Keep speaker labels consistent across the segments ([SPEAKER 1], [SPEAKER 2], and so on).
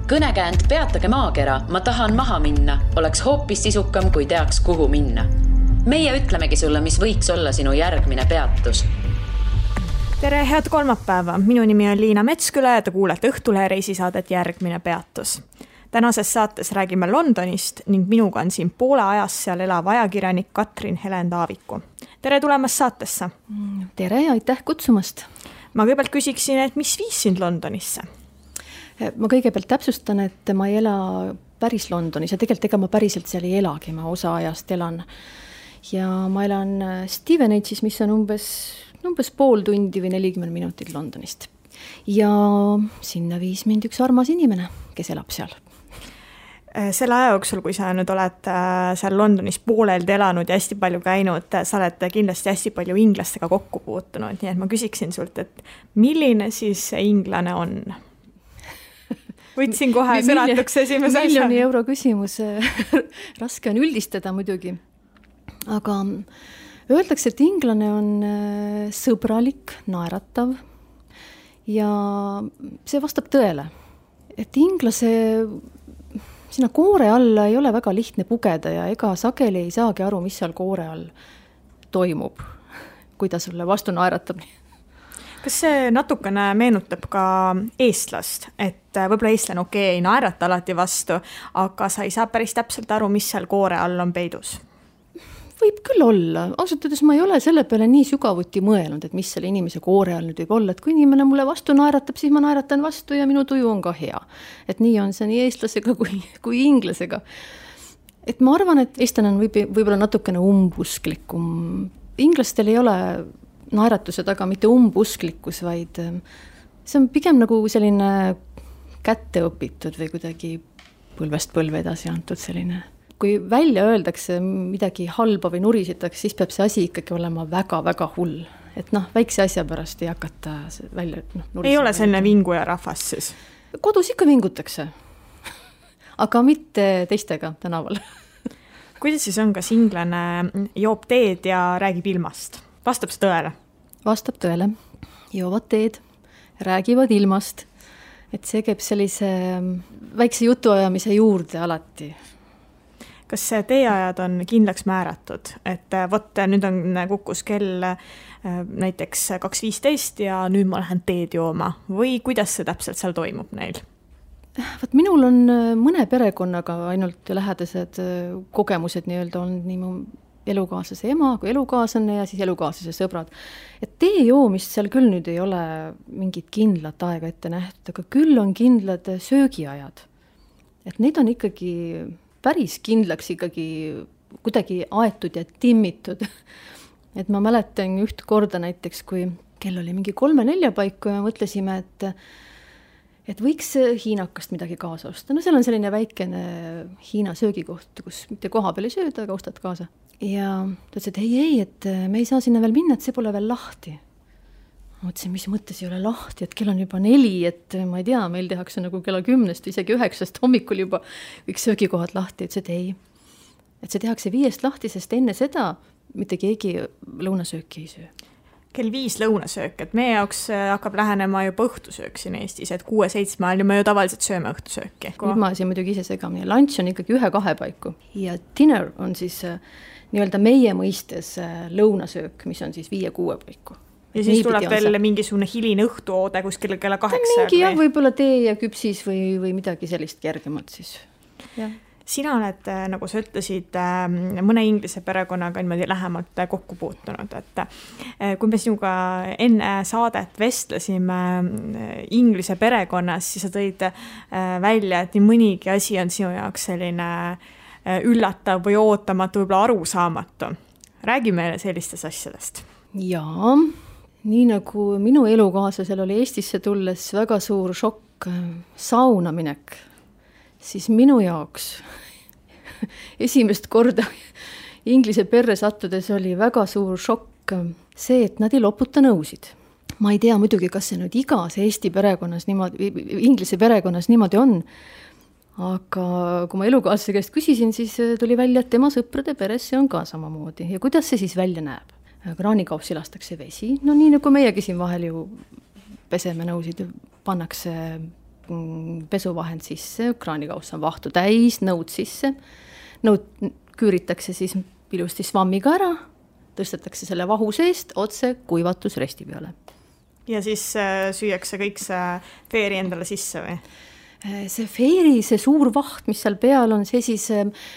[SPEAKER 1] Kõnekäänd Peatage maakera, ma tahan maha minna, oleks hoopis sisukam, kui teaks, kuhu minna. Meie ütlemegi sulle, mis võiks olla sinu järgmine peatus.
[SPEAKER 2] Tere, head kolmapäeva. Minu nimi on Liina Metsküla ja te kuulete Õhtulehe reisisaadet Järgmine peatus. Tänases saates räägime Londonist ning minuga on siin poole ajast seal elav ajakirjanik Katrin Helen Taaviku. Tere tulemast saatesse.
[SPEAKER 3] Tere ja aitäh kutsumast.
[SPEAKER 2] Ma kõigepealt küsiksin, et mis viis sind Londonisse?
[SPEAKER 3] Ma kõigepealt täpsustan, et ma ei ela päris Londonis ja tegelikult ega ma päriselt seal ei elagi, ma osa ajast elan. Ja ma elan Stevenage'is, mis on umbes pool tundi või 40 minutit Londonist. Ja sinna viis mind üks armas inimene, kes elab seal.
[SPEAKER 2] Selle aja jooksul, kui sa nüüd oled seal Londonis pooleldi elanud ja hästi palju käinud, sa oled kindlasti hästi palju inglastega kokku puutunud, nii et ma küsiksin sult, et milline siis see inglane on? Võtsin kohe sõnatuks esimese asja.
[SPEAKER 3] Miljoni euro küsimus, raske on üldistada muidugi, aga öeldakse, et inglane on sõbralik, naeratav ja see vastab tõele, et inglase sinna koore alla ei ole väga lihtne pugeda ja ega sageli ei saagi aru, mis seal koore all toimub, kui ta sulle vastu naeratab.
[SPEAKER 2] Kas see natukene meenutab ka eestlast, et võib-olla eestlane ei naerata alati vastu, aga sa ei saa päris täpselt aru, mis seal koore all on peidus? Võib küll olla. Ausalt öeldes ma ei ole selle peale nii sügavuti mõelnud, et mis selle inimese koore all nüüd võib olla, et kui inimene mulle vastu naeratab, siis ma naeratan vastu ja minu tuju on ka hea. Et nii on see nii eestlasega kui inglasega. Et ma arvan, et eestlane on võib-olla natukene umbusklikum. Inglastel ei ole naeratuse taga mitte umbusklikkus, vaid see on pigem nagu selline kätte õpitud või kuidagi põlvest põlve edasi antud selline. Kui välja öeldakse midagi halba või nurisitakse, siis peab see asi ikkagi olema väga-väga hull. Et väikse asja pärast ei hakata välja nurisida. Ei ole selline vinguja rahvas siis? Kodus ikka vingutakse, aga mitte teistega tänaval. Kuidas siis on, kas inglane joob teed ja räägib ilmast? Vastab see tõele? Vastab tõele. Joovad teed, räägivad ilmast. Et see käib sellise väikse jutuajamise juurde alati. Kas teeajad on kindlaks määratud, et võt, nüüd on kukkus kell näiteks 2.15 ja nüüd ma lähen teed jooma või kuidas see täpselt seal toimub neil? Minul on mõne perekonnaga ainult lähedased kogemused nii-öelda on nii mu elukaaslase ema kui elukaaslane ja siis elukaaslase sõbrad. Et tee joomist seal küll nüüd ei ole mingit kindlat aega ette nähtud, aga küll on kindlad söögiajad. Et neid on ikkagi päris kindlaks ikkagi kuidagi aetud ja timmitud. Et ma mäletan üht korda näiteks, kui kell oli mingi 3-4 paiku ja mõtlesime, et võiks hiinakast midagi kaasa osta. Seal on selline väikene Hiina söögikoht, kus mitte koha peal ei sööda, aga ostad kaasa. Ja ta ütles, et ei, et me ei saa sinna veel minna, et see pole veel lahti. Mõtlesin, mis mõttes ei ole lahti, et kell on juba 4, et ma ei tea, meil tehakse nagu kella 10, isegi 9 hommikul juba kõik söögikohad lahti, et ei. Et see tehakse 5 lahti, sest enne seda mitte keegi lõunasööki ei söö. Kell 5 lõunasöök, et meie jaoks hakkab lähenema juba õhtusöök siin Eestis, et 6-7 ajal me ju tavaliselt sööme õhtusööki. Nüüd ma siin muidugi ise segamini. Lunch on ikkagi 1-2 paiku ja dinner on siis nii-öelda meie mõistes lõunasöök, mis on siis 5-6 paiku. Ja siis tuleb veel mingisugune hiline õhtuoode kuskil kella 8. Mingi jah, võib-olla tee ja küpsis või midagi sellist kergemalt siis. Ja. Sina oled, nagu sa ütlesid, mõne inglise perekonnaga niimoodi lähemalt kokku puutunud. Et kui me sinuga enne saadet vestlesime inglise perekonnas, siis sa tõid välja, et nii mõnigi asi on sinu jaoks selline üllatav või ootamatu, võib-olla arusaamatu. Räägi meile sellistest asjadest. Jaa. Nii nagu minu elukaaslasel oli Eestisse tulles väga suur šokk sauna minek, siis minu jaoks esimest korda inglise perre sattudes oli väga suur šokk see, et nad ei loputa nõusid. Ma ei tea muidugi, kas see nüüd igas Eesti perekonnas niimoodi, inglise perekonnas niimoodi on, aga kui ma elukaaslase käest küsisin, siis tuli välja, et tema sõprade peres see on ka samamoodi. Ja kuidas see siis välja näeb? Kraanikaupsi lastakse vesi, no nii nagu meiegi siin vahel ju peseme nõusid, pannakse
[SPEAKER 3] pesuvahend sisse, kraanikauss on vahtu täis, nõud sisse, nõud küüritakse siis ilusti svammiga ära, tõstetakse selle vahu seest otse kuivatusresti peale.
[SPEAKER 2] Ja siis süüakse kõik see feeri endale sisse või?
[SPEAKER 3] See feeri, see suur vaht, mis seal peal on, see siis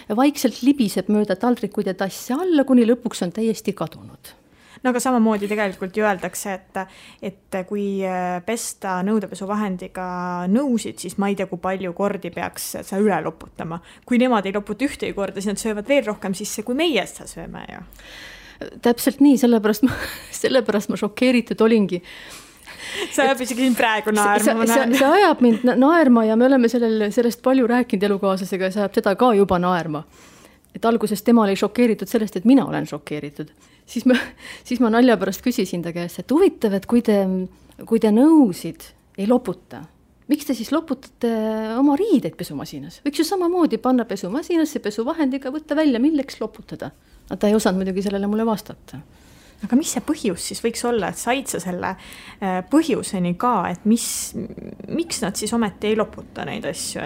[SPEAKER 3] vaikselt libiseb mööda taldrikuid ja tassi alla, kuni lõpuks on täiesti kadunud.
[SPEAKER 2] No aga samamoodi tegelikult ju öeldakse, et kui pesta nõudepesuvahendiga nõusid, siis ma ei tea, kui palju kordi peaks sa üle loputama. Kui nemad ei loputa ühtegi korda, siis nad söövad veel rohkem sisse, kui meie seda sööme ju.
[SPEAKER 3] Täpselt nii, sellepärast ma šokeeritud olingi.
[SPEAKER 2] See ajab isegi siin praegu naerma.
[SPEAKER 3] See ajab mind naerma ja me oleme sellest palju rääkinud elukaaslasega ja see ajab seda ka juba naerma. Et alguses tema oli šokeeritud sellest, et mina olen šokeeritud. Siis ma nalja pärast küsisin ta käest, et huvitav, et kui te nõusid ei loputa, miks te siis loputate oma riideid pesumasinas? Võiks ju samamoodi panna pesumasinasse pesuvahendiga, võtta välja, milleks loputada. Ta ei osanud muidugi sellele mulle vastata.
[SPEAKER 2] Aga mis see põhjus siis võiks olla, et said sa selle põhjuseni ka, et miks nad siis ometi ei loputa neid asju,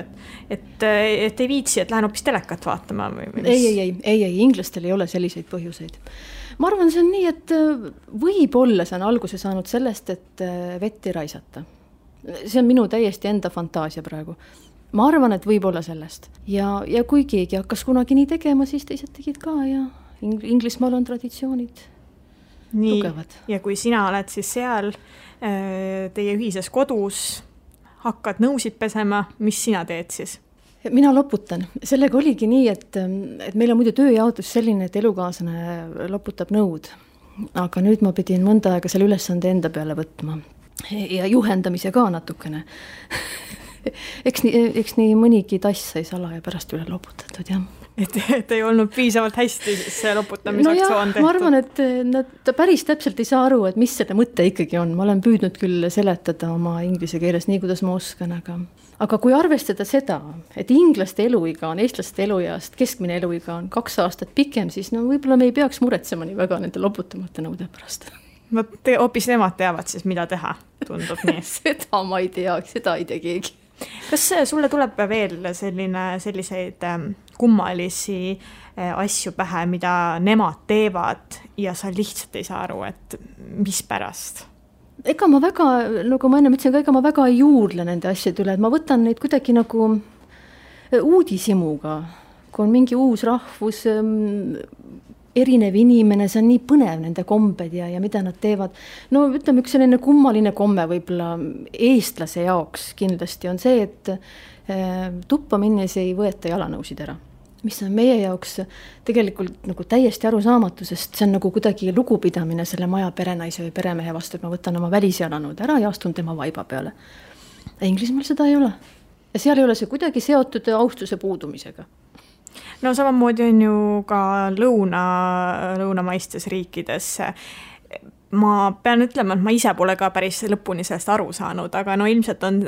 [SPEAKER 2] et ei viitsi, et lähen hoopis telekat vaatama? Või
[SPEAKER 3] ei, inglastel ei ole selliseid põhjuseid. Ma arvan, see on nii, et võib-olla see on alguse saanud sellest, et vett ei raisata. See on minu täiesti enda fantaasia praegu. Ma arvan, et võib-olla sellest. Ja kui keegi hakkas kunagi nii tegema, siis teised tegid ka ja Inglismaal on traditsioonid
[SPEAKER 2] nii,
[SPEAKER 3] tugevad.
[SPEAKER 2] Ja kui sina oled siis seal teie ühises kodus, hakkad nõusid pesema, mis sina teed siis?
[SPEAKER 3] Mina loputan. Sellega oligi nii, et meil on muidu tööjaotus selline, et elukaaslane loputab nõud. Aga nüüd ma pidin mõnda aega selle ülesande enda peale võtma. Ja juhendamise ka natukene. Eks nii mõnigi tass sai sala ja pärast üle loputatud, jah.
[SPEAKER 2] Et ei olnud piisavalt hästi see loputamisaktsioon tehtud.
[SPEAKER 3] Ma arvan, et ta päris täpselt ei saa aru, et mis selle mõte ikkagi on. Ma olen püüdnud küll seletada oma inglise keeles nii, kuidas ma oskan, aga kui arvestada seda, et inglaste eluiga on eestlaste elueast, keskmine eluiga on 2 aastat pikem, siis võib-olla me ei peaks muretsema nii väga nende loputamata nõude pärast.
[SPEAKER 2] Hoopis nemad teavad siis, mida teha, tundub nii.
[SPEAKER 3] Seda ma ei tea, seda ei tea keegi.
[SPEAKER 2] Kas sulle tuleb veel selliseid kummalisi asju pähe, mida nemad teevad ja sa lihtsalt ei saa aru, et mis pärast?
[SPEAKER 3] Ega ma väga, nagu ma enne mõtlesin, ega ma väga ei juurle nende asjade üle, et ma võtan neid kuidagi nagu uudisimuga, kui on mingi uus rahvus, erinev inimene, see on nii põnev nende kombed ja mida nad teevad. No ütleme, üks selline kummaline komme võib-olla eestlase jaoks kindlasti on see, et tuppa minnes ei võeta jalanõusid ära. Mis on meie jaoks tegelikult nagu täiesti arusaamatu, sest see on nagu kuidagi lugupidamine selle maja perenaise või peremehe vastu, et ma võtan oma välisjalanõud ära ja astun tema vaiba peale. Inglismaal seda ei ole. Ja seal ei ole see kuidagi seotud austuse puudumisega.
[SPEAKER 2] No samamoodi on ju ka lõunamaistes riikides. Ma pean ütlema, et ma ise pole ka päris lõpuni sellest aru saanud, aga no ilmselt on,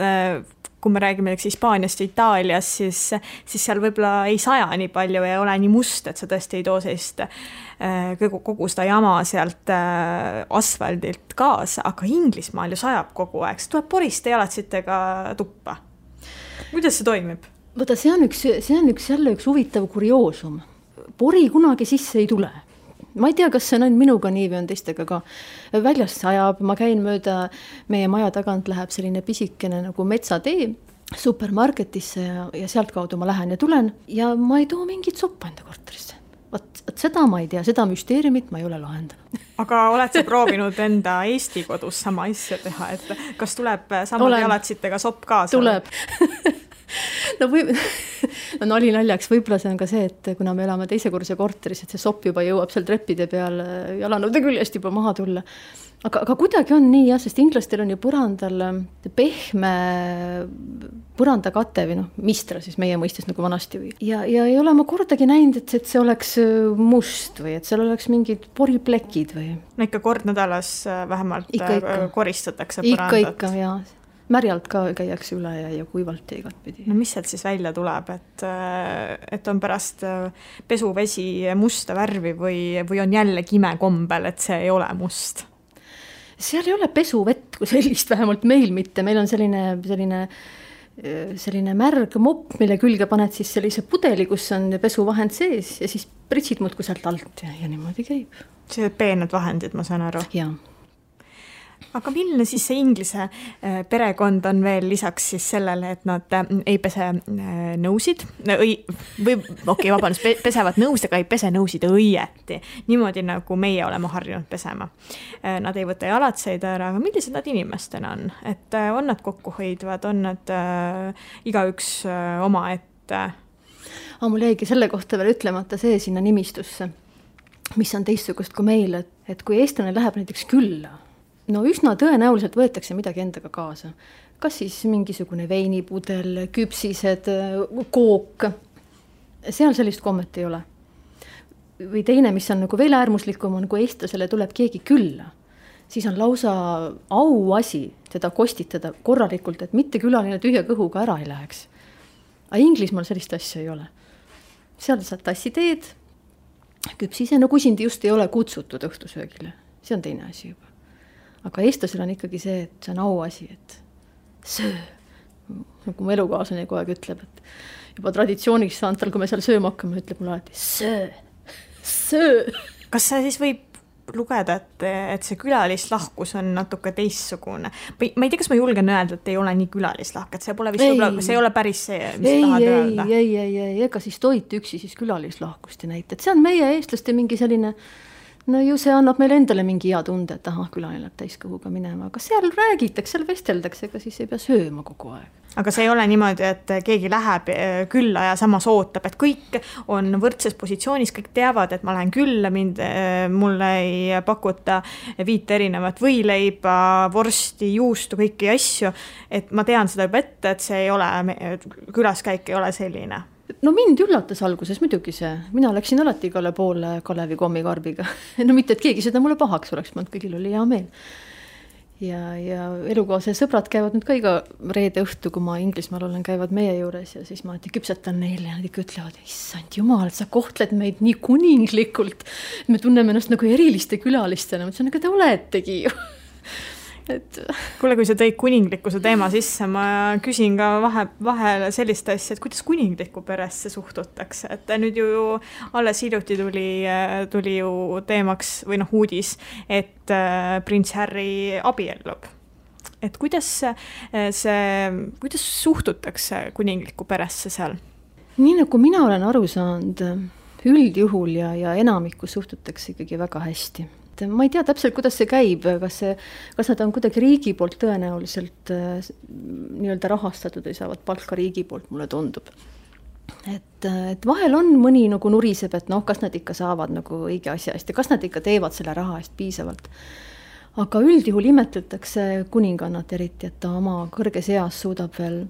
[SPEAKER 2] kui me räägime Hispaaniast ja Itaalias, siis seal võib-olla ei saja nii palju ja ole nii must, et sa tõesti ei too sellist kogu seda jama sealt asfaldilt kaasa, aga Inglismaal ju sajab kogu aeg. See tuleb poriste jalatsitega tuppa. Kuidas see toimib?
[SPEAKER 3] Võta, see on jälle üks huvitav kurioosum. Pori kunagi sisse ei tule. Ma ei tea, kas see on ainult minuga nii või on teistega ka. Väljast sajab, ma käin mööda meie maja tagant läheb selline pisikene nagu metsatee supermarketisse ja sealt kaudu ma lähen ja tulen ja ma ei too mingit soppa enda korterisse. Võt seda ma ei tea, seda müsteeriumit ma ei ole lahendanud.
[SPEAKER 2] Aga oled sa proovinud enda Eesti kodus sama asja teha, et kas tuleb samad jalatsitega sopp kaasa?
[SPEAKER 3] Tuleb. No oli naljaks, võib-olla see on ka see, et kuna me elame teisekorruse korteris, et see sopp juba jõuab seal treppide peal jalanõude küljest juba maha tulla. Aga kuidagi on nii, jah, sest inglastel on ju põrandal pehme põrandakate või mistra siis meie mõistes nagu vanasti. Ja ei ole ma kordagi näinud, et see oleks must või et seal oleks mingid poriplekid või.
[SPEAKER 2] No ikka kord nädalas vähemalt koristatakse
[SPEAKER 3] põrandat. Ikka, jah. Märjalt ka käiakse üle ja kuivalt ja igat pidi.
[SPEAKER 2] No mis sealt siis välja tuleb, et on pärast pesuvesi musta värvi või on jälle kime kombel, et see ei ole must?
[SPEAKER 3] Seal ei ole pesuvett kui sellist, vähemalt meil mitte. Meil on selline selline märg mopp, mille külge paned siis sellise pudeli, kus on pesuvahend sees ja siis pritsid muudkui sealt alt ja niimoodi käib.
[SPEAKER 2] See peened vahendid, ma saan aru.
[SPEAKER 3] Jaa. Aga
[SPEAKER 2] milline siis see Inglise perekond on veel lisaks siis sellele, et nad ei pese nõusid pesevad nõusid, aga ei pese nõusid õieti. Niimoodi nagu meie oleme harjunud pesema. Nad ei võta jalatseid ära, aga millised nad inimestena on? Et on nad kokkuhoidvad, on nad igaüks oma ette?
[SPEAKER 3] Mul jäigi selle kohta veel ütlemata see sinna nimistusse, mis on teistsugust kui meil, et kui eestlane läheb näiteks külla, no üsna tõenäoliselt võetakse midagi endaga kaasa. Kas siis mingisugune veinipudel, küpsised, kook. Seal sellist kommet ei ole. Või teine, mis on nagu veel äärmuslikum, on kui eestlasele tuleb keegi külla. Siis on lausa auasi teda kostitada korralikult, et mitte külaline tühja kõhuga ära ei läheks. Aga Inglismaal sellist asja ei ole. Seal saad tassi teed, küpsise, no kusindi just ei ole kutsutud õhtusöögile. See on teine asi juba. Aga eestlasel on ikkagi see, et see on auasi, et söö. Nagu mu elukaaslane kogu aeg ütleb, et juba traditsiooniks saanud tal, kui me seal sööma hakkame, ütleb mulle alati söö.
[SPEAKER 2] Kas see siis võib lugeda, et see külalislahkus on natuke teistsugune? Ma ei tea, kas ma julgen öelda, et ei ole nii külalislahk, et see pole vist see ei ole päris see, mis tahad öelda.
[SPEAKER 3] Ei, ega siis toit üksi siis külalislahkust ei näita. Et see on meie eestlaste mingi selline, no ju see annab meile endale mingi hea tunde, et külaline läheb täiskõhuga minema, aga seal räägitakse, seal vesteldakse, ega siis ei pea sööma kogu aeg.
[SPEAKER 2] Aga see ei ole niimoodi, et keegi läheb külla ja samas ootab, et kõik on võrdses positsioonis, kõik teavad, et ma lähen külla, mulle ei pakuta 5 erinevat võileiba, vorsti, juustu, kõiki asju, et ma tean seda juba ette, et see ei ole, külaskäik ei ole selline.
[SPEAKER 3] No mind üllatas alguses muidugi see. Mina läksin alati igale poole Kalevi kommikarbiga. No mitte, et keegi seda mulle pahaks oleks, ma kõigil oli hea meel. Ja elukaase sõbrad käivad nüüd ka iga reede õhtu, kui ma Inglismaal olen, käivad meie juures ja siis ma küpsetan neile ja nad ikka ütlevad, issand jumal, sa kohtled meid nii kuninglikult. Me tunneme ennast nagu eriliste külalistena. Ma ütlesin, aga te oletegi ju.
[SPEAKER 2] Kuule, kui sa tõid kuninglikkuse teema sisse, ma küsin ka vahel sellist asja, et kuidas kuninglikku peresse suhtutakse, et nüüd ju alles hiljuti tuli ju teemaks või uudis, et prints Harry abiellub. Et kuidas suhtutakse kuninglikku peresse seal?
[SPEAKER 3] Nii nagu mina olen aru saanud, üldjuhul ja enamikku suhtutakse ikkagi väga hästi. Ma ei tea täpselt, kuidas see käib, kas nad on kuidagi riigi poolt tõenäoliselt nii-öelda rahastatud või saavad palka riigi poolt, mulle tundub. Et vahel on mõni nagu nuriseb, et kas nad ikka saavad nagu õige asja eest ja kas nad ikka teevad selle raha eest piisavalt. Aga üldjuhul imetletakse kuningannat eriti, et ta oma kõrges eas suudab veel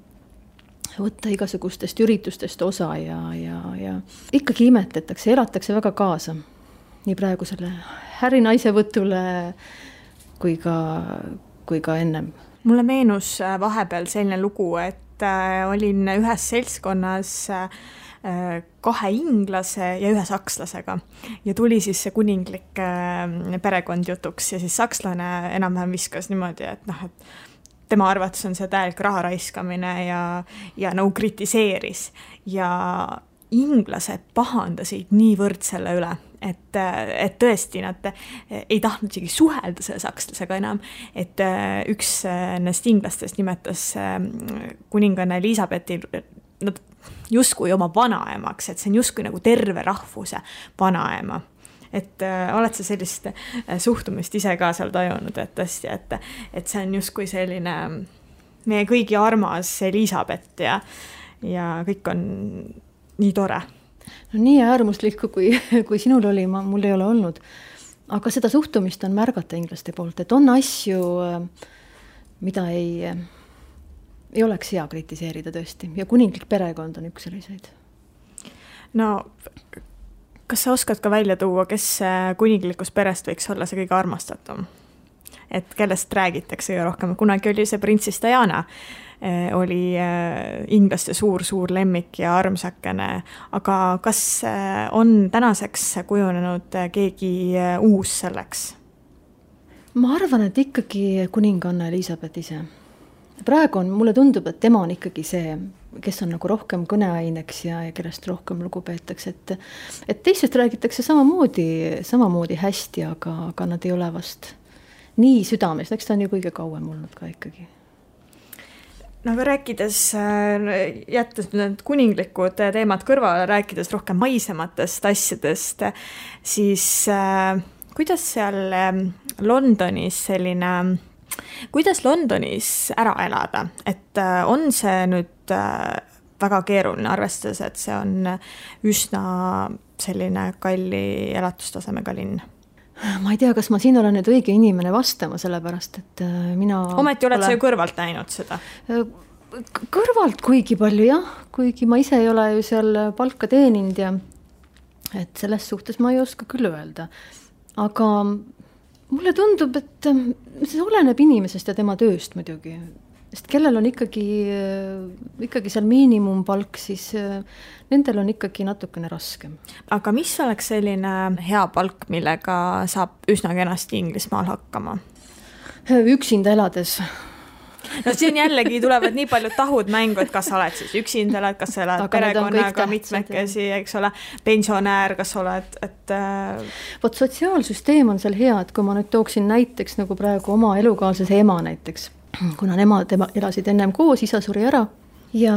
[SPEAKER 3] võtta igasugustest üritustest osa ja ikkagi imetletakse, elatakse väga kaasa. Nii praegu selle Harry naisevõtule kui ka ennem.
[SPEAKER 2] Mulle meenus vahepeal selline lugu, et olin ühes seltskonnas 2 inglase ja 1 sakslasega ja tuli siis see kuninglik perekond jutuks ja siis sakslane enam-vähem viskas niimoodi, et tema arvates on see täielik raha raiskamine ja nagu kritiseeris ja inglased pahandasid niivõrd selle üle, et tõesti nad ei tahtnud isegi suhelda selle sakslasega enam, et üks nendest inglastest nimetas kuninganna Elisabethi nad justkui oma vanaemaks, et see on justkui nagu terve rahvuse vanaema. Et oled sa sellist suhtumist ise ka seal tajunud, et tõesti, et see on justkui selline meie kõigi armas Elisabeth ja kõik on nii tore.
[SPEAKER 3] No nii äärmuslikku, kui sinul oli, mul ei ole olnud. Aga seda suhtumist on märgata inglaste poolt, et on asju, mida ei oleks hea kritiseerida tõesti. Ja kuninglik perekond on üks selliseid.
[SPEAKER 2] No, kas sa oskad ka välja tuua, kes kuninglikust perest võiks olla see kõige armastatum? Et kellest räägitakse rohkem? Kunagi oli see printsess Diana, oli inglaste suur lemmik ja armsakene, aga kas on tänaseks kujunenud keegi uus selleks?
[SPEAKER 3] Ma arvan, et ikkagi kuninganna Elisabeth ise. praegu mulle tundub, et tema on ikkagi see, kes on nagu rohkem kõneaineks ja kellest rohkem lugu peetakse, et teistest räägitakse samamoodi hästi, aga nad ei ole vast nii südames, eks ta on ju kõige kauem olnud ka ikkagi.
[SPEAKER 2] No aga rääkides, jättes need kuninglikud teemad kõrvale, rääkides rohkem maisematest asjadest, siis kuidas seal Londonis kuidas Londonis ära elada, et on see nüüd väga keeruline, arvestades, et see on üsna selline kalli elatustasemega linn?
[SPEAKER 3] Ma ei tea, kas ma siin olen nüüd õige inimene vastama, sellepärast, et mina...
[SPEAKER 2] Ometi oled sa ju kõrvalt näinud seda?
[SPEAKER 3] Kõrvalt kuigi palju, jah. Kuigi ma ise ei ole ju seal palka teeninud ja et selles suhtes ma ei oska küll öelda. Aga mulle tundub, et see oleneb inimesest ja tema tööst muidugi. Sest kellel on ikkagi seal miinimumpalk, siis nendel on ikkagi natukene raskem.
[SPEAKER 2] Aga mis oleks selline hea palk, millega saab üsna kenasti Inglismaal hakkama?
[SPEAKER 3] Üksinda elades.
[SPEAKER 2] No siin jällegi tulevad nii palju tahud mängu, et kas sa oled siis üksinda elad, kas sa elad perekonnaga mitmekesi, eks ole, pensionäär, kas oled, et...
[SPEAKER 3] Vot sotsiaalsüsteem on seal hea, et kui ma nüüd tooksin näiteks nagu praegu oma elukaaslase ema näiteks, kuna nemad elasid ennem koos, isa suri ära ja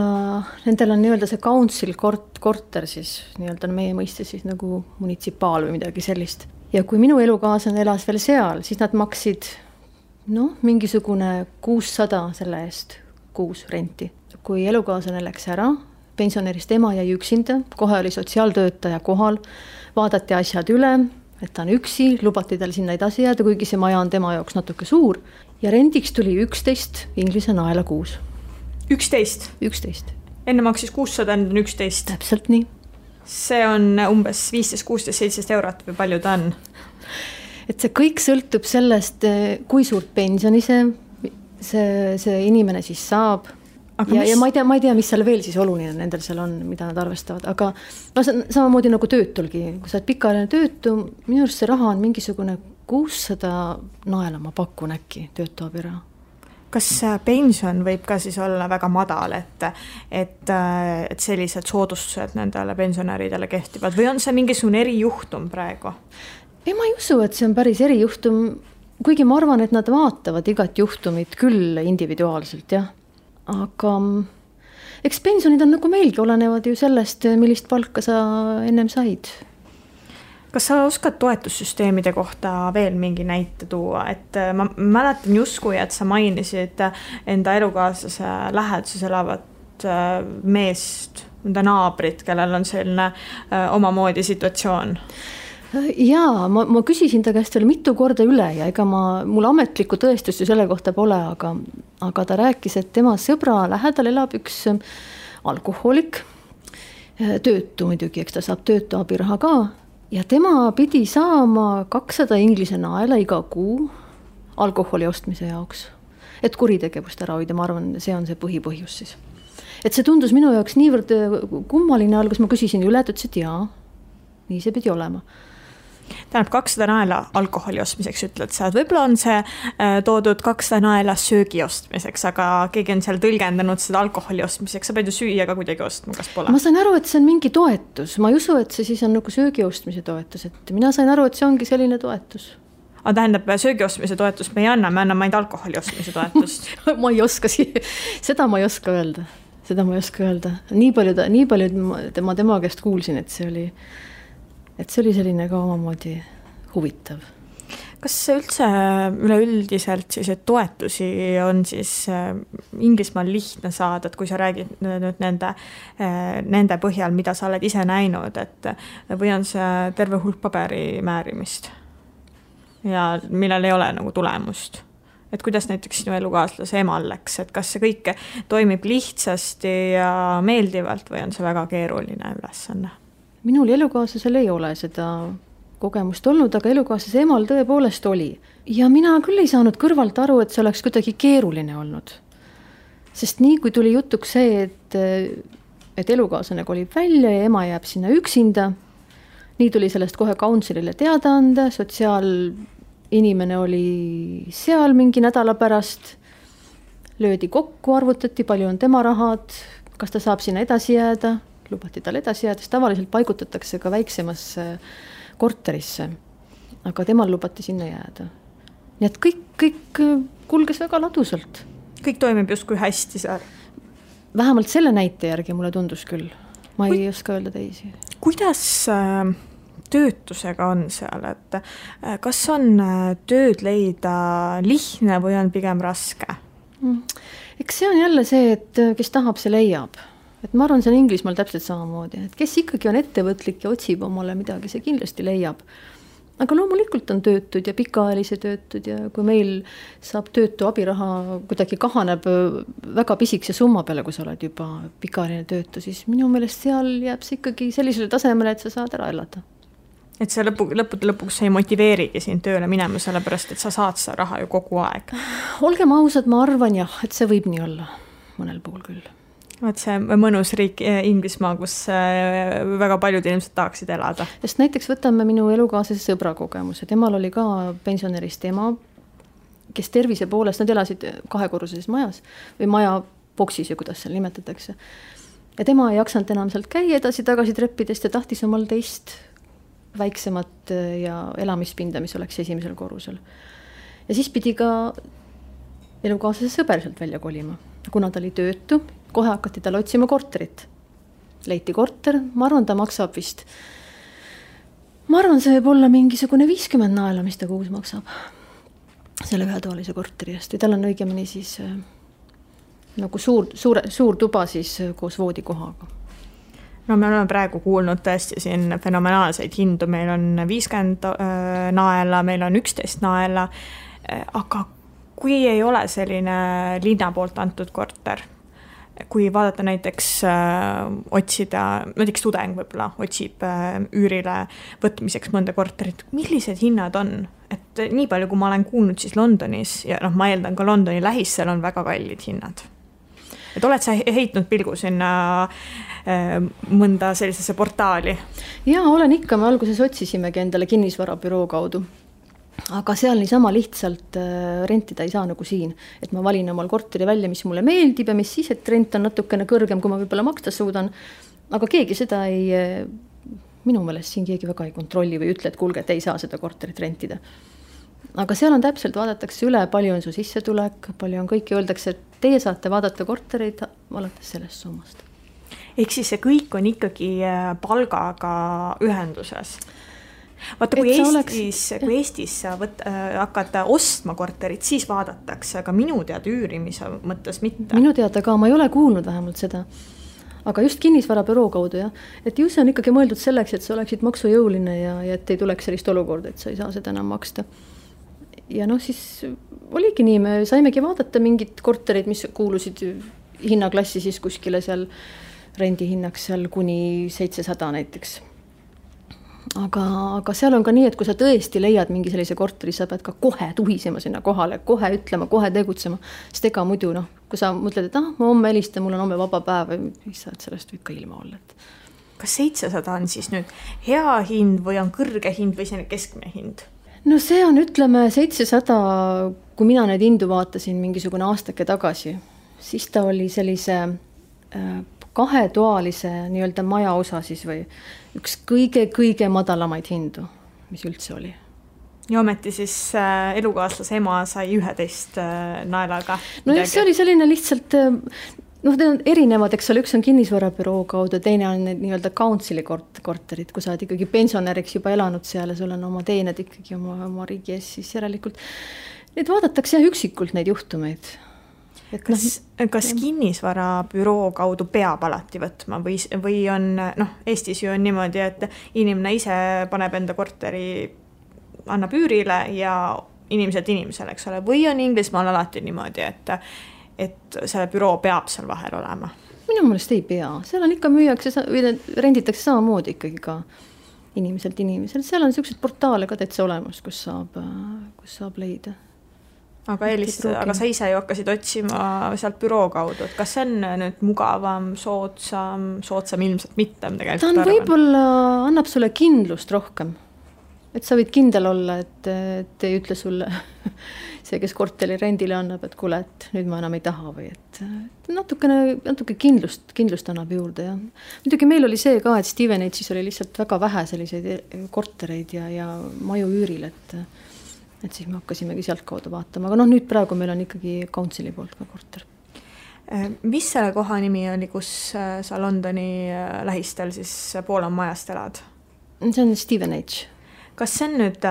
[SPEAKER 3] nendel on nii-öelda see council korter siis, nii-öelda meie mõiste siis nagu munitsipaal või midagi sellist. Ja kui minu elukaaslane elas veel seal, siis nad maksid mingisugune 600 selle eest kuus renti. Kui elukaaslane läks ära, pensionärist ema jäi üksinda, kohe oli sotsiaaltöötaja kohal, vaadati asjad üle, et ta on üksi, lubati tal sinna edasi jääda, kuigi see maja on tema jaoks natuke suur. Ja rendiks tuli 11 Inglise naela kuus.
[SPEAKER 2] 11?
[SPEAKER 3] 11.
[SPEAKER 2] Enne maksis 600, enne 11?
[SPEAKER 3] Täpselt nii.
[SPEAKER 2] See on umbes 15, 16, 17 eurot või palju ta on?
[SPEAKER 3] Et see kõik sõltub sellest, kui suurt pensioni see inimene siis saab. Ja ma ei tea, mis seal veel siis oluline nendel seal on, mida nad arvestavad, aga samamoodi nagu töötulgi, kui sa oled pikaajaline töötu, minu arust see raha on mingisugune 600 naela, ma pakun äkki töötuabiraha.
[SPEAKER 2] Kas pension võib ka siis olla väga madal, et sellised soodustused nendele pensionäridele kehtivad või on see mingisugune erijuhtum praegu?
[SPEAKER 3] Ei, ma ei usu, et see on päris erijuhtum, kuigi ma arvan, et nad vaatavad igat juhtumit küll individuaalselt, jah. Aga eks pensionid on nagu meilgi, olenevad ju sellest, millist palka sa ennem said.
[SPEAKER 2] Kas sa oskad toetussüsteemide kohta veel mingi näite tuua? Et ma mäletan justkui, et sa mainisid enda elukaaslase läheduses elavat meest, enda naabrit, kellel on selline omamoodi situatsioon.
[SPEAKER 3] Jaa, ma küsisin ta käest veel mitu korda üle ja ega mul ametlikku tõestust ju selle kohta pole, aga ta rääkis, et tema sõbra lähedal elab üks alkohoolik, töötu muidugi, eks ta saab töötu abiraha ka ja tema pidi saama 200 Inglise naela iga kuu alkoholi ostmise jaoks, et kuritegevust ära hoida, ma arvan, see on see põhipõhjus siis. Et see tundus minu jaoks niivõrd kummaline algus, ma küsisin üle, et ütles, et jaa, nii see pidi olema.
[SPEAKER 2] Tähendab 200 naela alkoholi ostmiseks ütled sa, et võib-olla on see toodud 200 naela söögi ostmiseks, aga keegi on seal tõlgendanud seda alkoholi ostmiseks, sa pead ju süüa ka kuidagi ostma, kas pole?
[SPEAKER 3] Ma sain aru, et see on mingi toetus, ma ei usu, et see siis on nagu söögi ostmise toetus, et mina sain aru, et see ongi selline toetus.
[SPEAKER 2] Aga tähendab, söögi ostmise toetust me ei anna, me anname ainult alkoholi ostmise toetust.
[SPEAKER 3] Ma ei oska, seda ma ei oska öelda. Nii palju ma tema käest kuulsin, et see oli selline ka omamoodi huvitav.
[SPEAKER 2] Kas üldse üleüldiselt siis, et toetusi on siis Inglismaal lihtne saada, et kui sa räägid nüüd nende põhjal, mida sa oled ise näinud, et või on see terve hulk paberi määrimist ja millel ei ole nagu tulemust? Et kuidas näiteks sinu elukaaslase emal läks, et kas see kõik toimib lihtsasti ja meeldivalt või on see väga keeruline ülesanne?
[SPEAKER 3] Minul elukaaslasel ei ole seda kogemust olnud, aga elukaaslase emal tõepoolest oli. Ja mina küll ei saanud kõrvalt aru, et see oleks kuidagi keeruline olnud. Sest nii kui tuli jutuks see, et elukaaslane kolib välja ja ema jääb sinna üksinda, nii tuli sellest kohe councilile teada anda, sotsiaalinimene oli seal mingi nädala pärast, löödi kokku, arvutati, palju on tema rahad, kas ta saab sinna edasi jääda, lubati tal edasi jääda, sest tavaliselt paigutatakse ka väiksemasse korterisse, aga temal lubati sinna jääda. Nii et kõik kulges väga ladusalt.
[SPEAKER 2] Kõik toimib justkui hästi seal.
[SPEAKER 3] Vähemalt selle näite järgi mulle tundus küll. Ma ei oska öelda teisi.
[SPEAKER 2] Kuidas töötusega on seal, et kas on tööd leida lihtne või on pigem raske?
[SPEAKER 3] Eks see on jälle see, et kes tahab, see leiab. Et ma arvan, see on Inglismaal täpselt samamoodi, et kes ikkagi on ettevõtlik ja otsib omale midagi, see kindlasti leiab. Aga loomulikult on töötud ja pikaajalise töötud ja kui meil saab töötu abiraha kuidagi kahaneb väga pisikese summa peale, kui sa oled juba pikaajaline töötu, siis minu meelest seal jääb see ikkagi sellisele tasemele, et sa saad ära elada.
[SPEAKER 2] Et see lõpuks ei motiveerigi siin tööle minema, sellepärast, et sa saad seda raha ju kogu aeg.
[SPEAKER 3] Olgem ausad, ma arvan jah, et see võib nii olla mõnel puhul küll.
[SPEAKER 2] Vaat see mõnus riik Inglismaa, kus väga paljud inimesed tahaksid elada.
[SPEAKER 3] Sest näiteks võtame minu elukaaslase sõbra kogemuse. Temal oli ka pensionerist ema, kes tervise poolest, nad elasid 2-korruses majas või maja boksis ja kuidas seal nimetatakse. Ja tema ei jaksanud enam sealt käia edasi-tagasi treppidest ja tahtis omal teist väiksemat ja elamispinda, mis oleks esimesel korrusel. Ja siis pidi ka elukaaslase sõber sealt välja kolima. Kuna ta oli töötu, kohe hakati tal otsima korterit. Leiti korter, ma arvan, ta maksab vist. Ma arvan, see võib olla mingisugune 50 naela, mis ta kuus maksab. Selle ühetoalise korteri eest. Või tal on õigemini siis nagu suur tuba siis koos voodikohaga.
[SPEAKER 2] No me oleme praegu kuulnud tõesti siin fenomenaalseid hindu. Meil on 50 naela, meil on 11 naela, aga kui ei ole selline linna poolt antud korter, kui vaadata näiteks otsida, näiteks tudeng võib-olla otsib üürile võtmiseks mõnda korterit, millised hinnad on? Et nii palju, kui ma olen kuulnud siis Londonis ja ma eeldan ka Londoni lähistel on väga kallid hinnad. Et oled sa heitnud pilgu sinna mõnda sellisesse portaali?
[SPEAKER 3] Jaa, olen ikka, me alguses otsisimegi endale kinnisvarabüroo kaudu. Aga seal niisama lihtsalt rentida ei saa nagu siin, et ma valin omal korteri välja, mis mulle meeldib ja mis siis, et rent on natukene kõrgem, kui ma võib-olla maksta suudan. Aga keegi seda minu meelest siin keegi väga ei kontrolli või ütle, et kuulge, et ei saa seda korterit rentida. Aga seal on täpselt, vaadatakse üle, palju on su sissetulek, palju on kõik ja öeldakse, et teie saate vaadata kortereid alates sellest summast.
[SPEAKER 2] Ehk siis see kõik on ikkagi palgaga ühenduses. Vaata, kui Eestis sa hakata ostma korterit, siis vaadatakse, aga minu teada üürimise mõttes mitte.
[SPEAKER 3] Minu teada ka, ma ei ole kuulnud vähemalt seda. Aga just kinnisvarabüroo kaudu, jah. Et ju see on ikkagi mõeldud selleks, et sa oleksid maksujõuline ja et ei tuleks sellist olukorda, et sa ei saa seda enam maksta. Ja siis oligi nii, me saimegi vaadata mingid korterid, mis kuulusid hinnaklassi siis kuskile seal rendihinnaks seal kuni 700 näiteks. Aga seal on ka nii, et kui sa tõesti leiad mingi sellise korteri, sa pead ka kohe tuhisema sinna kohale, kohe ütlema, kohe tegutsema. Sest ega muidu, kui sa mõtled, et ma homme helistan, mul on homme vaba päev, mis sa sellest võib ka ilma olla.
[SPEAKER 2] Kas 700 on siis nüüd hea hind või on kõrge hind või selline keskmine hind?
[SPEAKER 3] No see on, ütleme, 700, kui mina neid hindu vaatasin mingisugune aastake tagasi, siis ta oli sellise 2-toalise nii-öelda maja osa siis või üks kõige madalamaid hindu, mis üldse oli.
[SPEAKER 2] Ja ometi siis elukaaslase ema sai 11 naelaga.
[SPEAKER 3] No jah, see oli selline lihtsalt, need on erinevad, eks ole, üks on kinnisvarabüroo kaudu, teine on nii-öelda councili korterid, kui sa oled ikkagi pensionäriks juba elanud seal ja sul on oma teened ikkagi oma riigi ees, siis järelikult neid vaadatakse üksikult neid juhtumeid.
[SPEAKER 2] Kas kinnisvarabüroo kaudu peab alati võtma või on, Eestis ju on niimoodi, et inimene ise paneb enda korteri, annab üürile ja inimesele, eks ole, või on Inglismaal alati niimoodi, et selle büroo peab seal vahel olema?
[SPEAKER 3] Minu meelest ei pea, seal on ikka müüakse või renditakse samamoodi ikkagi ka inimeselt. Seal on sellised portaale ka täitsa olemas, kus saab leida.
[SPEAKER 2] Aga sa ise ju hakkasid otsima sealt büroo kaudu, et kas see on nüüd mugavam, soodsam ilmselt mitte?
[SPEAKER 3] Ta on võib-olla, annab sulle kindlust rohkem. et sa võid kindel olla, et ei ütle sulle see, kes korteri rendile annab, et kuule, et nüüd ma enam ei taha või et natuke kindlust annab juurde. Ja muidugi meil oli see ka, et Stevenage'is oli lihtsalt väga vähe selliseid kortereid ja maju üüril, et siis me hakkasimegi sealt kaudu vaatama. Aga nüüd praegu meil on ikkagi Councili poolt ka korter.
[SPEAKER 2] Mis selle koha nimi oli, kus sa Londoni lähistel siis Poola majast elad?
[SPEAKER 3] See on Stevenage.
[SPEAKER 2] Kas see on nüüd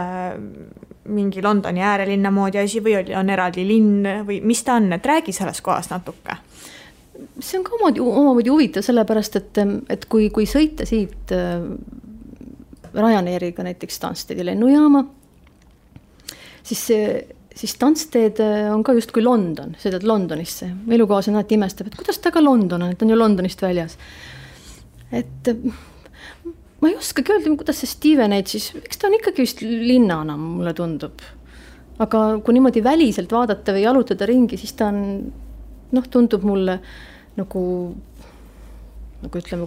[SPEAKER 2] mingi Londoni äärelinna moodi asi või on eraldi linn või mis ta on, et räägi selles kohas natuke?
[SPEAKER 3] See on ka omamoodi huvitav, sellepärast, et kui sõita siit Ryanairiga näiteks Stanstedi lennujaama, siis Stansted on ka just kui London, sõidad Londonisse. Elukaas on alati imestab, et kuidas ta ka London on, et on ju Londonist väljas. Et ma ei oskagi öelda, kuidas see Stevenage, siis eks ta on ikkagi vist linnana, mulle tundub. Aga kui niimoodi väliselt vaadata või jalutada ringi, siis ta on, tundub mulle nagu ütleme,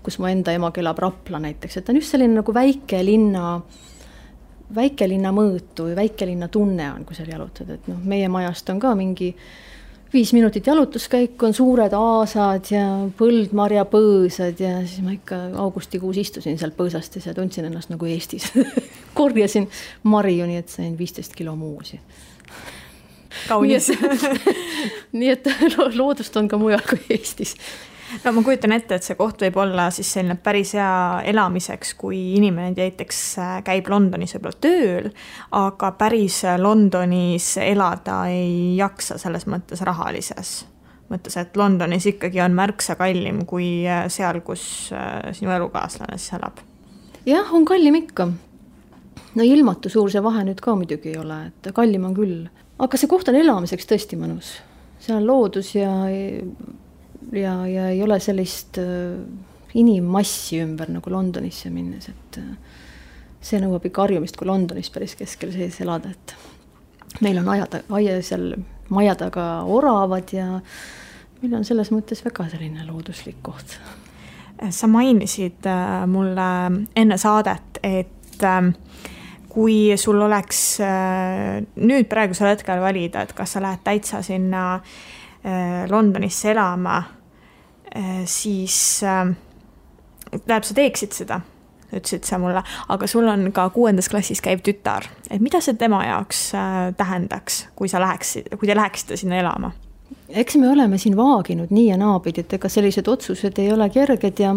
[SPEAKER 3] kus mu enda ema elab Rapla näiteks, et ta on just selline nagu väikelinna mõõtu või väikelinna tunne on, kui seal jalutad, et meie majast on ka mingi 5 minutit jalutuskäik, on suured aasad ja põldmarjapõõsad ja siis ma ikka augustikuus istusin seal põõsastes ja tundsin ennast nagu Eestis. Korjasin marju, nii et sain 15 kilo muusi.
[SPEAKER 2] Kaunis.
[SPEAKER 3] Nii et loodust on ka mujal kui Eestis.
[SPEAKER 2] No ma kujutan ette, et see koht võib olla siis selline päris hea elamiseks, kui inimene näiteks käib Londonis võib-olla tööl, aga päris Londonis elada ei jaksa selles mõttes rahalises. Mõttes, et Londonis ikkagi on märksa kallim kui seal, kus sinu elukaaslane siis elab.
[SPEAKER 3] Jah, on kallim ikka. No ilmatu suur see vahe nüüd ka muidugi ei ole, et kallim on küll. Aga see koht on elamiseks tõesti mõnus. See on loodus ja ei ole sellist inimmassi ümber nagu Londonisse minnes, et see nõuab ikka harjumist kui Londonis päris keskel sees elada, et meil on seal maja taga oravad ja meil on selles mõttes väga selline looduslik koht.
[SPEAKER 2] Sa mainisid mulle enne saadet, et kui sul oleks nüüd praegusel hetkel valida, et kas sa lähed täitsa sinna Londonisse elama, siis sa teeksid seda, ütlesid sa mulle, aga sul on ka 6. klassis käiv tütar. Et mida see tema jaoks tähendaks, kui te läheksite sinna elama?
[SPEAKER 3] Eks me oleme siin vaaginud nii ja naabid, et ega sellised otsused ei ole kerged ja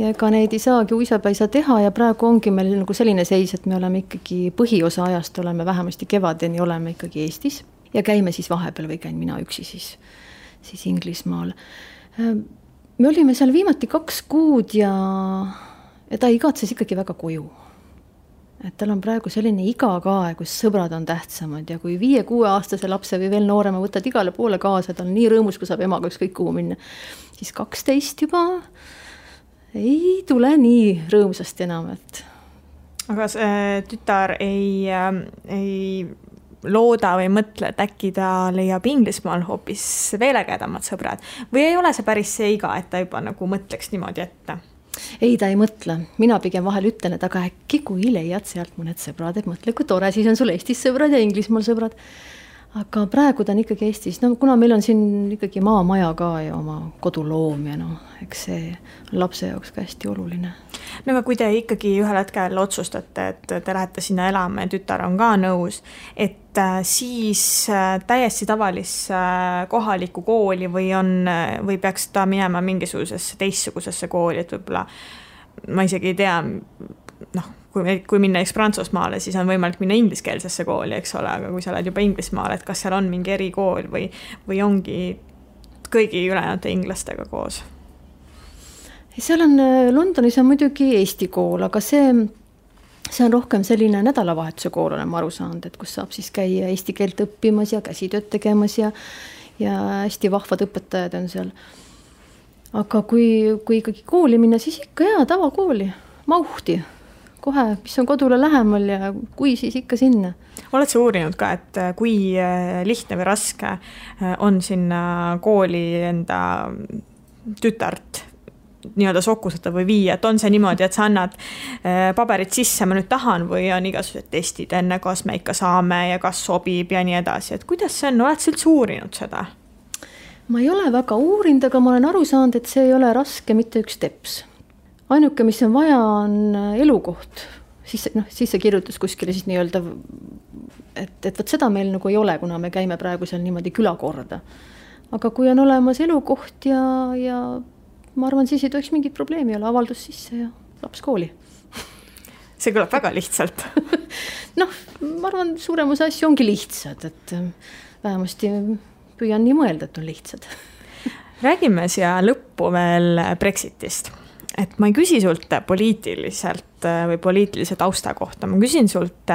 [SPEAKER 3] ega neid ei saagi uisapäisa teha ja praegu ongi meil nagu selline seis, et me oleme ikkagi põhiosa ajast oleme vähemasti kevadeni oleme ikkagi Eestis ja käime siis vahepeal või käin mina üksi siis Inglismaal. Me olime seal viimati 2 kuud ja ta igatses ikkagi väga koju. Et tal on praegu selline iga ka, kus sõbrad on tähtsamad ja kui 5-6 aastase lapse või veel noorema võtad igale poole kaasa, ta on nii rõõmus, kui saab emaga ükskõik kuhu minna, siis 12 juba ei tule nii rõõmsasti enam.
[SPEAKER 2] Aga see tütar ei looda või mõtle, et äkki ta leiab Inglismaal hoopis veel ägedamad sõbrad või ei ole see päris see iga, et ta juba nagu mõtleks niimoodi ette?
[SPEAKER 3] Ei, ta ei mõtle. Mina pigem vahel ütlen, et aga äkki kui leiad sealt mõned sõbrad, et mõtle, kui tore, siis on sul Eestis sõbrad ja Inglismaal sõbrad. Aga praegu ta on ikkagi Eestis, kuna meil on siin ikkagi maamaja ka ja oma koduloom ja eks see on lapse jaoks ka hästi oluline.
[SPEAKER 2] No aga kui te ikkagi ühel hetkel otsustate, et te lähete sinna elama ja tütar on ka nõus, et siis täiesti tavalisse kohalikku kooli või peaks ta minema mingisugusesse teistsugusesse kooli, et võib-olla ma isegi ei tea, kui minna Prantsusmaale, siis on võimalik minna ingliskeelsesse kooli, eks ole, aga kui sa oled juba Inglismaal, et kas seal on mingi erikool või ongi kõigi ülejäänud inglastega koos?
[SPEAKER 3] Seal on, Londonis on muidugi Eesti kool, aga see on rohkem selline nädalavahetuse kool, olen ma aru saanud, et kus saab siis käia eesti keelt õppimas ja käsitööd tegemas ja hästi vahvad õpetajad on seal. Aga kui ikkagi kooli minna, siis ikka tavakooli, Mauhti. Kohe, mis on kodule lähemal ja kui siis ikka sinna.
[SPEAKER 2] Oled sa uurinud ka, et kui lihtne või raske on sinna kooli enda tütart nii-öelda sokustada või viia, et on see niimoodi, et sa annad paberid sisse, ma nüüd tahan, või on igasugused testid enne, kas me ikka saame ja kas sobib ja nii edasi, et kuidas see on, oled sa üldse uurinud seda?
[SPEAKER 3] Ma ei ole väga uurinud, aga ma olen aru saanud, et see ei ole raske mitte üks teps. Ainuke, mis on vaja, on elukoht. Siis see kirjutas kuskile siis nii-öelda, et võt seda meil nagu ei ole, kuna me käime praegu seal niimoodi külakorda. Aga kui on olemas elukoht ja ma arvan, siis ei tohiks mingit probleemi olla, avaldus sisse ja laps kooli.
[SPEAKER 2] See kõlab väga lihtsalt.
[SPEAKER 3] Ma arvan, suuremus asju ongi lihtsad, et vähemasti püüan nii mõelda, et on lihtsad.
[SPEAKER 2] Räägime siia lõppu veel Brexitist. Et ma ei küsi sult poliitiliselt või poliitilise tausta kohta, ma küsin sult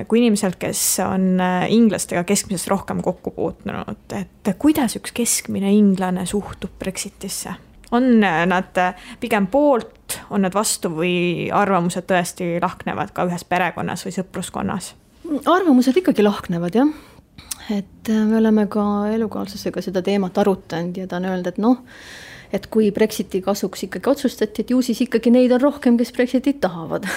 [SPEAKER 2] kui inimeselt, kes on inglastega keskmisest rohkem kokku puutunud, et kuidas üks keskmine inglane suhtub Brexitisse? On nad pigem poolt, on nad vastu või arvamused tõesti lahknevad ka ühes perekonnas või sõpruskonnas?
[SPEAKER 3] Arvamused ikkagi lahknevad, jah. Et me oleme ka elukaaslasega seda teemat arutanud ja ta on öelnud, et kui Brexiti kasuks ikkagi otsustati, et ju siis ikkagi neid on rohkem, kes Brexitit tahavad.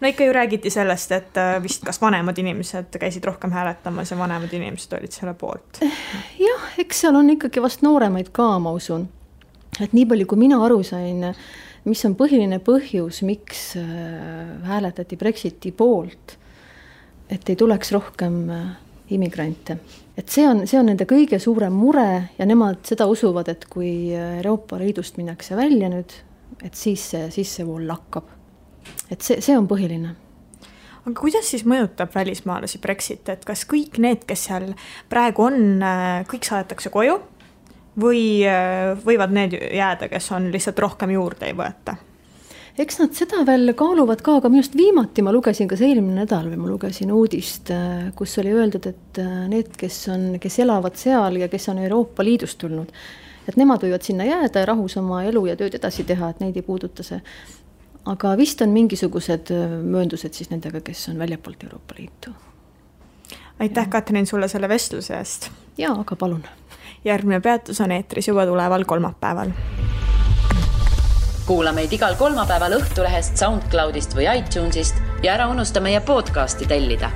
[SPEAKER 2] No ikka ju räägiti sellest, et vist kas vanemad inimesed käisid rohkem hääletamas ja vanemad inimesed olid selle poolt.
[SPEAKER 3] Jah, eks seal on ikkagi vast nooremaid ka, ma usun. Et nii palju, kui mina aru sain, mis on põhiline põhjus, miks hääletati Brexiti poolt, et ei tuleks rohkem immigrante. Et see on nende kõige suurem mure ja nemad seda usuvad, et kui Euroopa Liidust minnakse välja nüüd, et siis see vool lakkab. Et see on põhiline.
[SPEAKER 2] Aga kuidas siis mõjutab välismaalasi Brexit, et kas kõik need, kes seal praegu on, kõik saadetakse koju või võivad need jääda, kes on lihtsalt rohkem juurde ei võeta?
[SPEAKER 3] Eks nad seda veel kaaluvad ka, aga minust viimati ma lugesin ka see eelmine nädal või ma lugesin uudist, kus oli öeldud, et need, kes elavad seal ja kes on Euroopa Liidust tulnud, et nemad võivad sinna jääda ja rahus oma elu ja tööd edasi teha, et neid ei puuduta see. Aga vist on mingisugused mööndused siis nendega, kes on väljapoolt Euroopa Liitu.
[SPEAKER 2] Aitäh, Katrin, sulle selle vestluse eest.
[SPEAKER 3] Jaa, aga palun.
[SPEAKER 2] Järgmine peatus on eetris juba tuleval kolmapäeval.
[SPEAKER 1] Kuula meid igal kolmapäeval Õhtulehest, SoundCloudist või iTunesist ja ära unusta meie podcasti tellida.